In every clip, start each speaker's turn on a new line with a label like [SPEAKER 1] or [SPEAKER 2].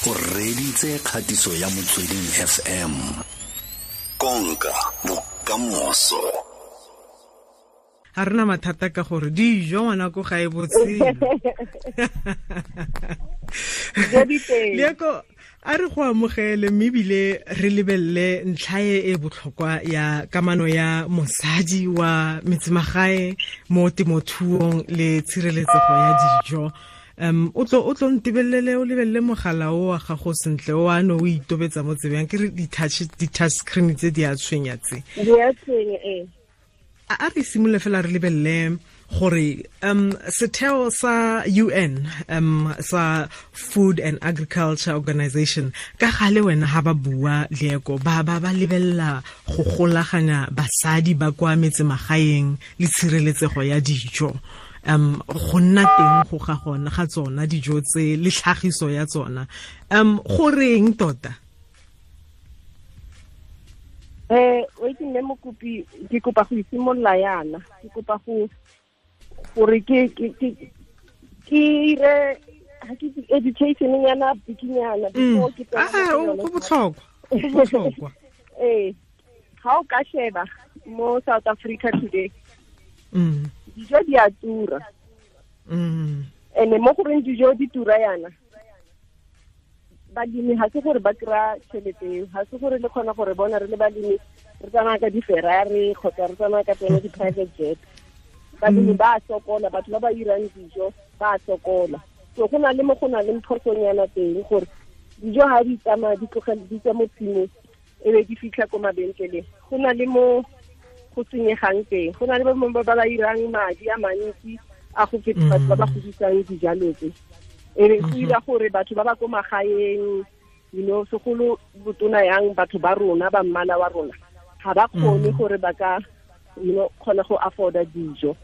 [SPEAKER 1] O reditse kgatiso ya Motsweding FM. Konka bokamoso.
[SPEAKER 2] Ga rena mathata ka gore dijo ngwana ko ga e botshelo. Leako, a re go amogele mme ebile re lebelele ntlha e e botlhokwa ya kamano ya mosadi wa metsemagae mo temothuong le tshireletsego ya dijo. O tlo ntebelele, o lebelele mogala o wa gago sentle o ano o itobetsa mo tsebeng, ke re di-touch screen tse di a tshwenya tse.
[SPEAKER 3] Di a tshwenya, ee.
[SPEAKER 2] A re simolole fela re lebelele gore setheo sa UN sa Food and Agriculture Organization ka gale wena ha ba bua Leako ba ba lebella go golaganya basadi ba kwa metsemagaeng le tshireletsego ya dijo. Go nna teng go ga gona ga tsona dijo tse le tlhagiso ya tsona. Go reng tota?
[SPEAKER 3] O itse mme Mokopi, ke kopa go isimolola yana, ke kopa go gore ke ire ha ke education nyana bikinyana before ke tsena.
[SPEAKER 2] Go botlhokwa, go botlhokwa.
[SPEAKER 3] Ha o ka sheba mo South Africa today, dijo di a tura. Ene mo goreng dijo di tura yana, balemi ha se gore ba kry-a tšhelete eo, ha se gore le kgona gore bona re le balemi re tsamaya ka di-Ferrari kgotsa re tsamaya ka tsone di-private jet. Balemi ba a sokola, batho ba ba irang dijo ba a sokola. So go na le mo go na le phosonyana teng gore dijo ha di tsamaya di tlogele di tswa mo tshimong e be di fitlha ko mabenkeleng, go na le mo go senyegang teng, go na le ba ba ba irang madi a mantsi a go feta batho ba ba godisang dijalo tse. E be go ira gore batho ba ba ko magaeng, you know, segolo botona yang batho ba rona ba mmala wa rona ga ba kgone gore ba ka, you know, kgona go afforda dijo.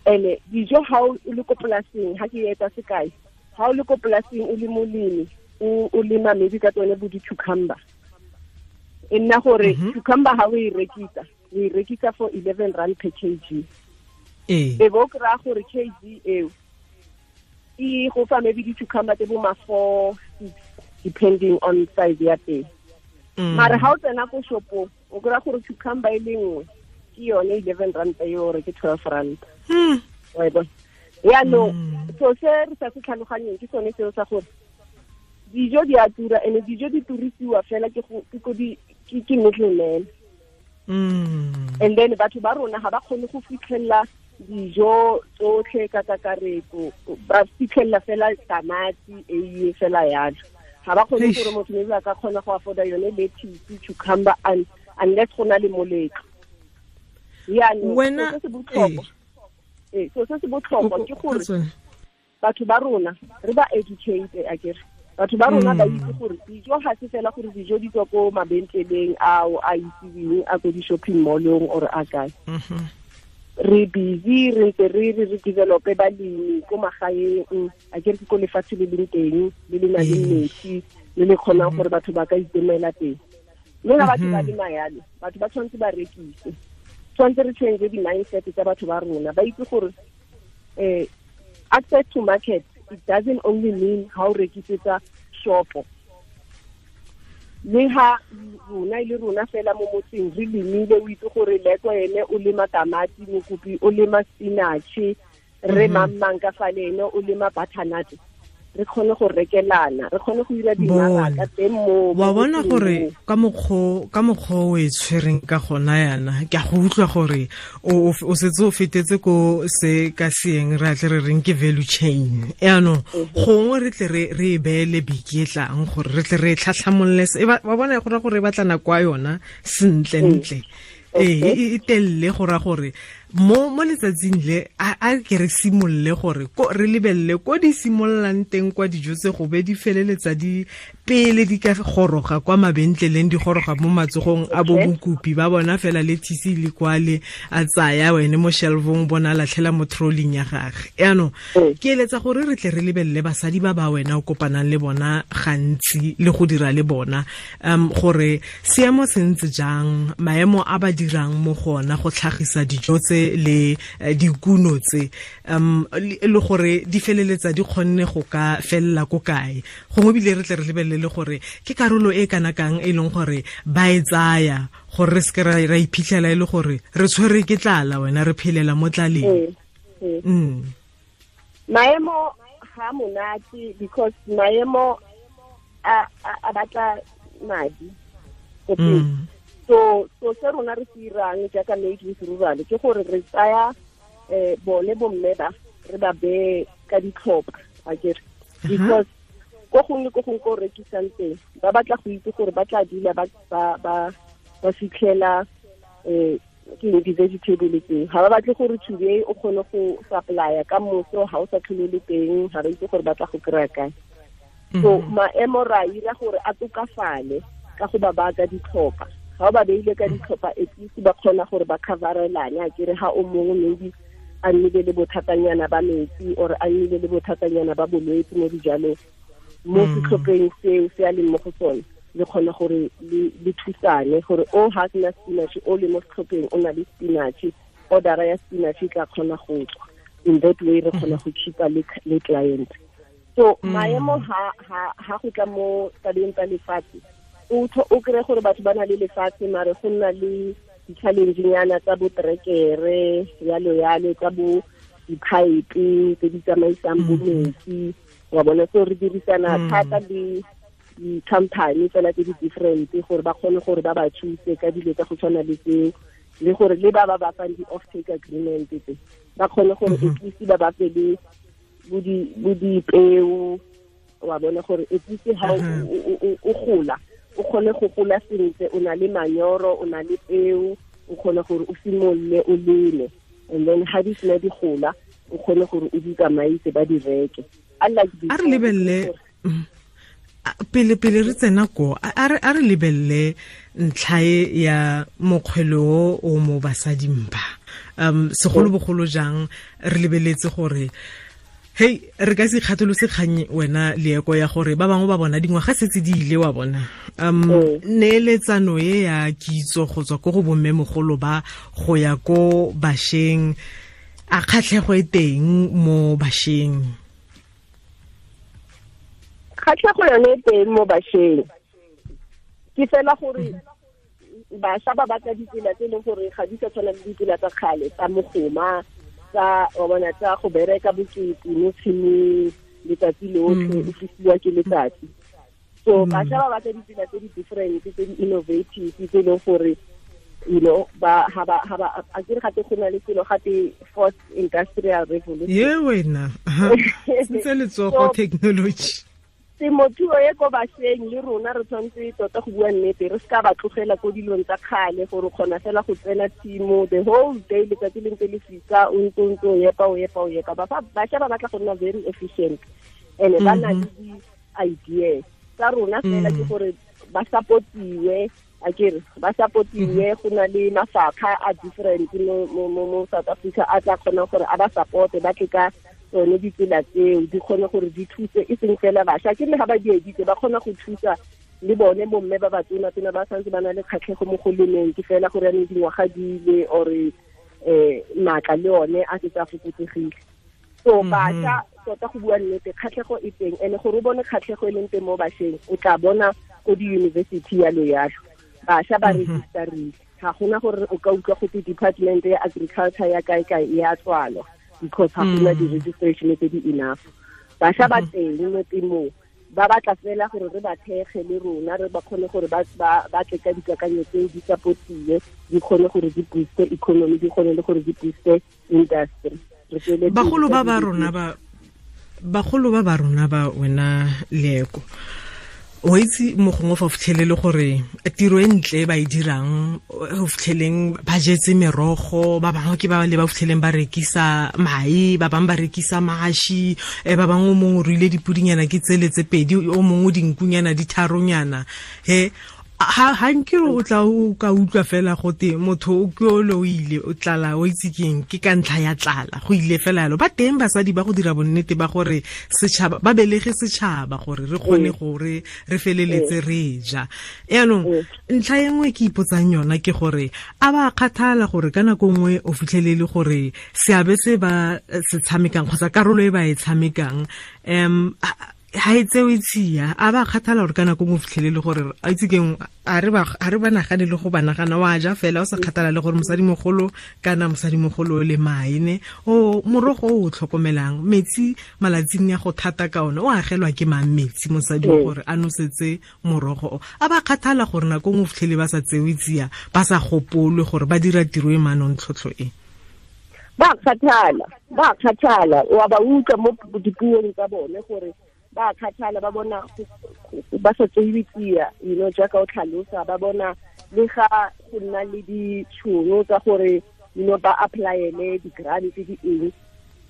[SPEAKER 3] Ene dijo ha o le ko polaseng, ha ke etsa sekai, ha o le ko polaseng o le molemi, o lema maybe ka tsone bo di-cucumber, e nna gore cucumber ha o e rekisa, o e rekisa for 11 rand per kg. E bo kry-a gore kg eo e go fa maybe di-cucumber tse bo ma 4, 6 depending on size ya teng. Mara ha o tsena ko shopong o kry-a gore cucumber e le nngwe ke yone 11 rand eo gore ke 12 rand. Wa e bona? Yaanong so se re sa se tlhaloganyeng ke sone seo sa gore dijo di a tura, ene dijo di turisiwa fela ke ke middleman. And then batho ba rona ga ba kgone go fitlhelela dijo tsotlhe ka kakaretso, ba fitlhelela fela tamati, eiye fela yalo. Ga ba kgone gore motho maybe a ka kgona go afforda yone lettuce, cucumber, unless go na le moletlo. Yaanong se se botlhokwa, so se se botlhokwa ke gore batho ba rona re ba educate, akere batho ba rona ba itse gore dijo ga se fela gore dijo di tswa ko mabentleleng ao a itseweng a ko di-shopping mall-ong or a kae. Re busy re ntse re re develope balemi ko magaeng, akere ke ko lefatshe le leng teng le le nang le metsi le le kgonang gore batho ba ka itemela teng. Mme ga batho ba lema yalo, batho ba tshwanetse ba rekise, tshwanetse re change di-mindset tsa batho ba rona, ba itse gore access to market, it doesn't only mean ha o rekisetsa shopo. Le ha rona e le rona fela mo motseng re lemile, o itse gore Leko ene o lema tamati, Mokopi o lema spinach, re mang ka fa le ene o lema butternut, re kgone go rekelana, re kgone go dira dimaraka teng mo.
[SPEAKER 2] Wa bona gore ka mokgwa o e tshwereng ka gona yana, ke a go utlwa gore o setse o fetetse ko se ka seeng re atle re reng ke value chain. Yaanong gongwe re tle re e beele beke e tlang gore re tle re e tlhatlhamolole, wa bona go ra gore e batla nako ya yona sentle-ntle. E telele go ra gore mo letsatsing le a ke re simolole gore re lebelele ko di simololang teng kwa dijo tse go be di feleletsa di pele di ka goroga kwa mabentleleng, di goroga mo matsogong a bo mokopi ba bona fela le thisi le kwale a tsaya wene mo shelvong bona latlhela mo trolling ya gagwe. Yaanong ke eletsa gore re tle re lebelele basadi ba ba wena o kopanang le bona gantsi le go dira le bona, gore seemo se ntse jang, maemo a ba dirang mo gona go tlhagisa dijo tse tse le dikuno tse le gore di feleletsa di kgonne go ka fella ko kae gongwe bile re tle re lebelele gore ke karolo e kana kang e leng gore ba e tsaya gore re seke ra iphitlhela e le gore re tshwere ke tlala wena re phelela mo tlaleng.
[SPEAKER 3] Maemo ga monate because maemo a batla madi. So se rona re se irang jaaka Made with Rural ke gore re tsaya bone bomme ba re ba beye ka ditlhopha akere, because ko gongwe ko gongwe ko rekisang teng ba batla go itse gore ba tla dula ba fitlhela ke di-vegetable tseo. Ga ba batle gore today o kgone go supplya ka moso ga o sa tlhole le teng, ga ba itse gore ba tla go kry-a kae. So maemo ra ira gore a tokafale ka go ba baka ditlhopha. Ga o ba beile ka ditlhopha at least ba kgona gore ba coverelane akere, ga o mongwe maybe a nnile le bothatanyana ba metsi or a nnile le bothatanyana ba bolwetse mo dijalong mo setlhopheng seo se a leng mo go sone, le kgona gore le thusane gore o ha sena spinach o le mo setlhopheng o na le spinach, order ya spinach e tla kgona go tswa. In that way re kgona go keepa le client. So maemo ha go tla mo tabeng tsa lefatshe, o kry gore batho ba na le lefatshe mare go nna le di-challenge-nyana tsa bo trekere yalo yalo, tsa bo di-pipe tse di tsamaisang bo metsi wa bona. So re dirisana thata le di-company fela tse di different gore ba kgone gore ba ba thuse ka dilo tsa go tshwana le tseo, le gore le ba ba fang di-off-take agreement tse ba kgone gore at least ba ba fe le bo dipeo wa bona, gore at least ha o gola o kgone go gola sentle, o na le manyoro, o na le peo, o kgone gore o simolole o leme, and then ha di sena di gola o kgone gore o di tsamaise ba di reke.
[SPEAKER 2] A re lebelele pele re tsena ko, a re lebelele ntlha ya mokgwelo o mo basading ba segolobogolo jang re lebeletse gore hey re ka se kgatholose kgang wena Leeko ya gore ba bangwe ba bona dingwaga setse di ile wa bona neeletsano e ya kitso go tswa ko go bommemogolo ba go ya ko bašweng, a kgatlhego e teng mo bašweng?
[SPEAKER 3] Kgatlhego yone e teng mo bašweng, ke fela gore bašwa ba batla ditsela tse e leng gore ga di sa tshwana le ditsela tsa kgale tsa mogoma, tsa wa bona tsa go bereka bokete mo tshimong letsatsi lotlhe o fisiwa ke letsatsi. So bašwa ba batla ditsela tse di different, tse di innovative, tse e leng gore you know ba ha ba a kere gape go na le selo gape fourth industrial revolution.
[SPEAKER 2] Ye wena sentse letsogo technology.
[SPEAKER 3] Temothuo e ko bašweng le rona re tshwanetse tota go bua nnete, re seka ba tlogela ko dilong tsa kgale gore o kgona fela go tsena tshimo the whole day letsatsi le ntse le fisa o ntse o epa o epa o epa. Bašwa ba batla go nna very efficient and ba na le di-ideas tsa rona fela ke gore ba supportiwe akere, ba supportiwe go na le mafapha a different mo South Africa a tla kgonang gore a ba supporte, ba tle ka tsone ditsela tseo di kgone gore di thuse e seng fela bašwa, ke le ga ba di editse ba kgona go thusa le bone bomme ba batona tsena ba santse ba na le kgatlhego mo go lemeng, ke fela gore yanong dingwaga di ile or maatla le one a setse a fokotsegile. So bašwa tota go bua nnete kgatlhego e teng, and gore o bone kgatlhego e leng teng mo bašweng o tla bona ko di-university yalo yalo bašwa ba registerile, ga gona gore o ka utlwa gote department ya agriculture ya kae kae e a tswalwa because ga gona di-registration tse di enough. Bašwa ba teng mo temong ba batla fela gore re ba thekge le rona re ba kgone gore ba tle ka dikakanyo tseo di supportiwe, di kgone gore di booste economy, di kgone le gore di booste industry.
[SPEAKER 2] Bagolo ba ba rona ba bagolo ba ba rona ba wena Leeko, o itse mo gongwe fa o fitlhelele gore tiro e ntle ba e dirang, o fitlheleng ba jetse merogo, ba bangwe ke ba le ba fitlheleng ba rekisa mae, ba bangwe ba rekisa mashi, ba bangwe o mongwe o ruile dipudinyana ke tsele tse pedi, o mongwe dinkunyana di tharonyana. He Ha nke o tla o ka utlwa fela gote motho o ke o le o ile o tlala o itse keng ke ka ntlha ya tlala go ile fela yalo. Ba teng basadi ba go dira bonnete ba gore setšhaba ba belege setšhaba gore re kgone gore re feleletse re ja. Yaanong ntlha e nngwe ke ipotsang yona ke gore a ba kgathala gore ka nako nngwe o fitlhelele gore seabe se ba se tshamekang kgotsa karolo e ba e tshamekang ha e tsewe tsia, a ba kgathala gore ka nako nngwe o fitlhelele gore a itse keng a re ba nagane le go ba nagana wa ja fela o sa kgathala le gore mosadimogolo kana mosadimogolo le maene o morogo o tlhokomelang metsi malatsing ya go thata ka ona o agelwa ke mang metsi mosadi gore a nosetse morogo o. A ba kgathala gore nako nngwe o fitlhele ba sa tsewe tsia, ba sa gopolwe gore ba dira tiro e manontlhotlho e.
[SPEAKER 3] Ba kgathala wa ba utlwa mo dipuong tsa bone gore ba kgathala, ba bona ba sa tsewe tsia, you know, jaaka o tlhalosa, ba bona le ga go nna le ditšhono tsa gore, you know, ba applyele di-grant di eng,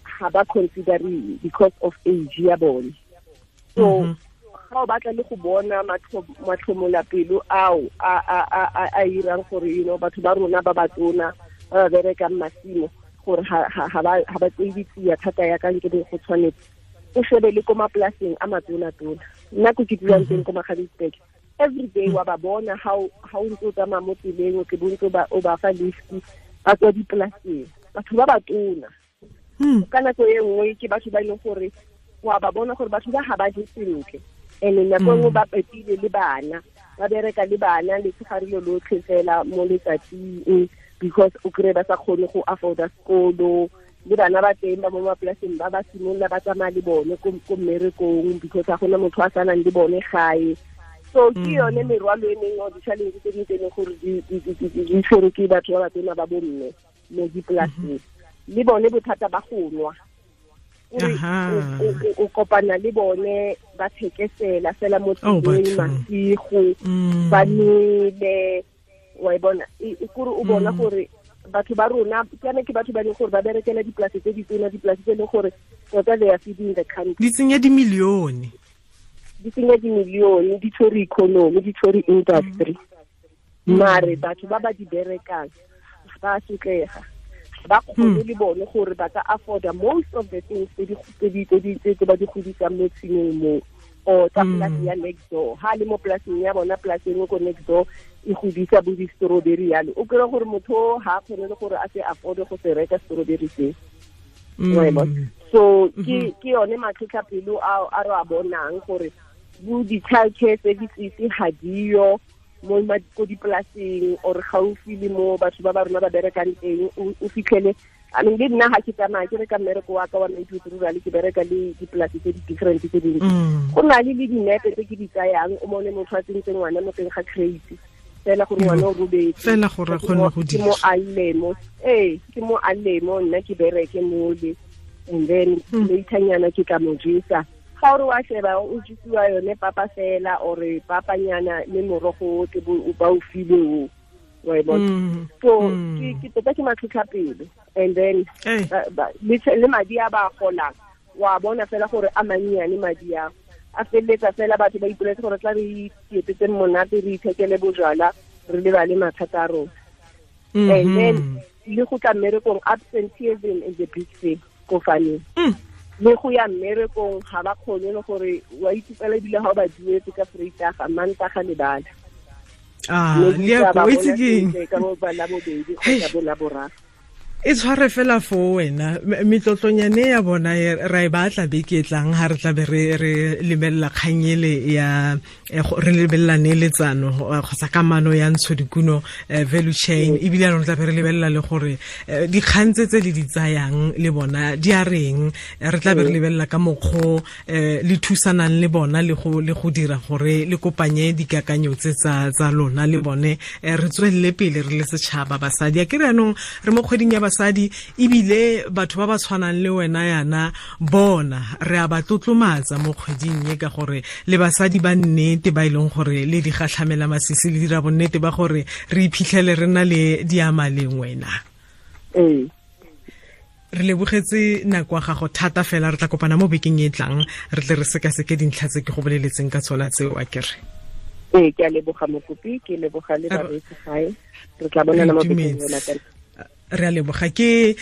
[SPEAKER 3] ga ba consideriwe because of age ya bone. So ga o batla le go bona matlhomolapelo ao a irang gore, you know, batho ba rona ba batona ba ba berekang masimo gore ga ba tsewe tsia thata ya ka nke go tshwanetse. O shebe le ko mapolaseng a matona-tona, nna ko ke dulang teng ko Magaliesburg, every day wa ba bona ha o ntse o tsamaya mo tseleng, o tle bo ntse o ba fa lift ba tswa dipolaseng, batho ba batona. Ka nako e nngwe ke batho ba e leng gore wa ba bona gore batho ba ga ba je sentle, and nako e nngwe ba pepile le bana, ba bereka le bana letshegare lo lotlhe fela mo letsatsing because o kry-e ba sa kgone go afforda sekolo. Le bana ba teng ba mo mapolaseng ba ba simolola ba tsamaya le bone ko mmerekong because ga gona motho a sanang le bone gae. So ke yone merwalo e mengwe or di-challenge tse dingwe tse e leng gore di tshwerwe ke batho ba batona ba bomme mo dipolaseng. Le bone bothata ba go nwa, o kopana le bone ba thekesela fela mo tseleng masigo, ba nwele, wa e bona kore o bona gore batho ba rona kana ke batho ba leng gore ba berekela dipolase tse ditona, dipolase tse leng gore tota they are feeding the country.
[SPEAKER 2] Di tsenya dimilione,
[SPEAKER 3] di tshwere economy, di tshwere industry. Mare batho ba ba di berekang ba sotlega, ba kgone le bone gore ba ka afforda most of the things tse ba di godisang mo tshimong mo or tsa polase ya next door. Ha le mo polaseng ya bona, polase engwe ko next door e godisa bo di-strawberry yalo, o kry-e gore motho ha kgone le gore a se afforde go se reka strawberry se. So ke yone matlhotlhapelo a re a bonang gore bo di-child care services ga diyo mo ko dipolaseng or gaufi le mo batho ba ba rona ba berekang teng. O fitlhele, I mean, le nna ga ke tsamaya ke reka mmereko wa ka wa Maithuto Rural, ke bereka le dipolase tse di different tse dintsi. Go na le dinepe tse ke di tsayang, o mone motho a tsentse ngwana mo teng ga crate fela gore ngwana o robetse
[SPEAKER 2] fela gore a kgone go dira,
[SPEAKER 3] ke mo a lle mo, nna ke bereke mole, and then laternyana ke tla mo jesa. Ga o re wa sheba o jesiwa yone papa fela or papanyana le morogo o tle ba o file o, wa e bona. So ke tota ke matlhotlhapelo. And then le madi a ba golang wa bona fela gore a mannyane madi a feleletsa fela batho ba ipoletse gore tla re itietsetse monate, re ithekele bojwala, re lebale mathata a rona. And then le go tla mmerekong, absenteeism is a big thing ko farming. Le go ya mmerekong ga ba kgone le gore wa itse fela ebile ga o ba duetse ka Vrydag, Mantaga le bala.
[SPEAKER 2] Le go itse keng
[SPEAKER 3] ka bo ba labobedi kgotsa bo laboraro.
[SPEAKER 2] E tshware fela fo wena metlotlonyane ya bona ra e batla beke e tlang ha re tla be re lebelela kganyele ya re lebelela neeletsano kgotsa kamano ya ntshodikuno value chain, ebile anong tla be re lebelela le gore dikgang tse le di tsayang le bona di a reng, re tla be re lebelela ka mokgwa le thusanang le bona le go dira gore le kopanye dikakanyo tse tsa lona le bone, re tswelele pele re le setšhaba basadi. A ke re anong re mo kgweding ya basadi, ebile batho ba ba tshwanang le wena yana bona re a ba tlotlomatsa mo kgweding e, ka gore le basadi ba nnete ba e leng gore le di gatlhamela masisi le dira bonnete ba gore re iphitlhele re na le diamaleng wena. Re lebogetse nako ya gago thata fela, re tla kopana mo bekeng e tlang re tle re sekaseke dintlha tse ke go boleletseng ka tsona tseo, a kere.
[SPEAKER 3] Ee, ke a leboga mokopi, ke leboga le bareetsi gae. Re tla bonana mo bekeng e latelang.
[SPEAKER 2] Re a leboga. Ke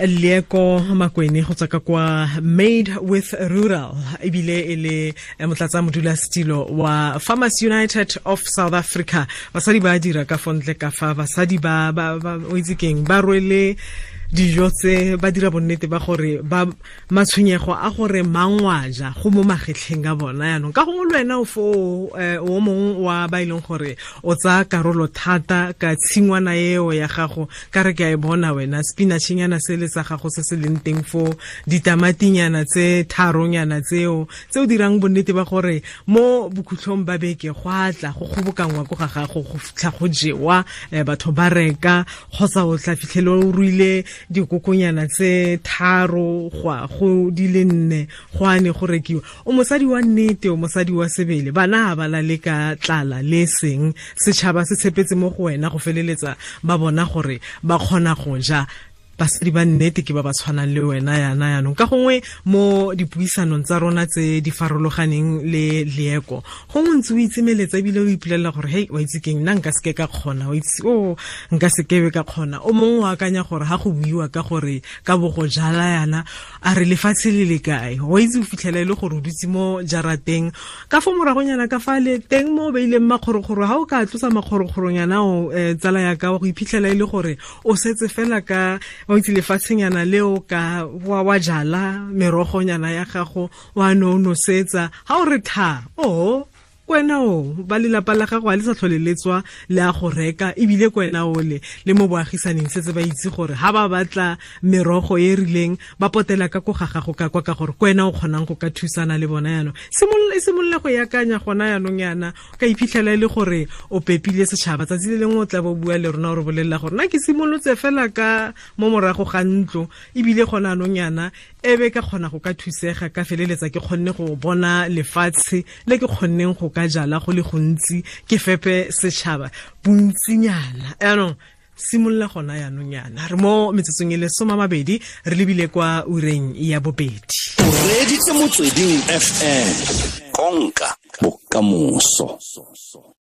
[SPEAKER 2] Leeko Makwene go tswa ka kwa Made with Rural, ebile e le motlatsa modulasetilo wa Farmers United of South Africa. Basadi ba dira ka fontle ka fa, basadi ba o itse keng, ba rwele dijo tse, ba dira bonnete ba gore ba matshwenyego a gore mangwaja go mo magetlheng a bona. Yaanong ka gongwe le wena o fo o mongwe wa ba e leng gore o tsaya karolo thata ka tshingwana eo ya gago, ka re ke a e bona wena spinachnyana se le sa gago se se leng teng fo, ditamatinyana tse tharonyana tseo tse o dirang bonnete ba gore mo bokhutlhong ba beke go a tla go kgobokangwa ko ga gago go fitlha go jewa, batho ba reka, kgotsa o tla fitlhele o ruile dikokonyana tse 3 go go di le 4 go ane go rekiwa. O mosadi wa nnete, o mosadi wa sebele, bana ba la le ka tlala le seng, setšhaba se tshepetse mo go wena go feleletsa ba bona gore ba kgona go ja. Basadi ba nnete ke ba ba tshwanang le wena yana. Yanong ka gongwe mo dipuisanong tsa rona tse di farologaneng le Leeko, gongwe ntse o itsemeletsa ebile o ipolelela gore hei, wa itse keng, nna nka seke ka kgona, wa itse o nka sekebe ka kgona. O mongwe o akanya gore ha go buiwa ka gore ka bo go jala yana, a re lefatshe le le kae, wa itse o fitlhela e le gore o dutse mo jarateng ka fo moragonyana ka fa le teng mo o beileng makgorokgoro. Ha o ka tlosa makgorokgoronyana o tsala ya ka, wa go iphitlhela e le gore o setse fela ka o itse lefatshenyana leo ka wa jala merogonyana ya gago, wa no nosetsa, ha o re tha o kwena o ba lelapa la gago a le sa tlhole le tswa le a go reka, ebile kwena o le mo boagisaneng setse ba itse gore ha ba batla merogo e rileng ba potela ka ko ga gago ka kwa, ka gore kwena o kgonang go ka thusana le bona. Yanong simolola go yakanya gona yanong yana, ka iphitlhela e le gore o pepile setšhaba. Tsatsi le lengwe o tla bo bua le rona o re bolelela gore nna ke simolotse fela ka mo morago ga ntlo, ebile gona anong yana ebe ka kgona go ka thusega, ka feleletsa ke kgonne go bona lefatshe le ke kgonneng go ka jala go le gontsi, ke fepe setšhaba bontsinyana. Yaanong simolola gona yaanong yana. Re mo metsotsong e le 20 re lebile kwa ureng ya 2.
[SPEAKER 1] O reeditse Motsweding FM, konka bokamoso.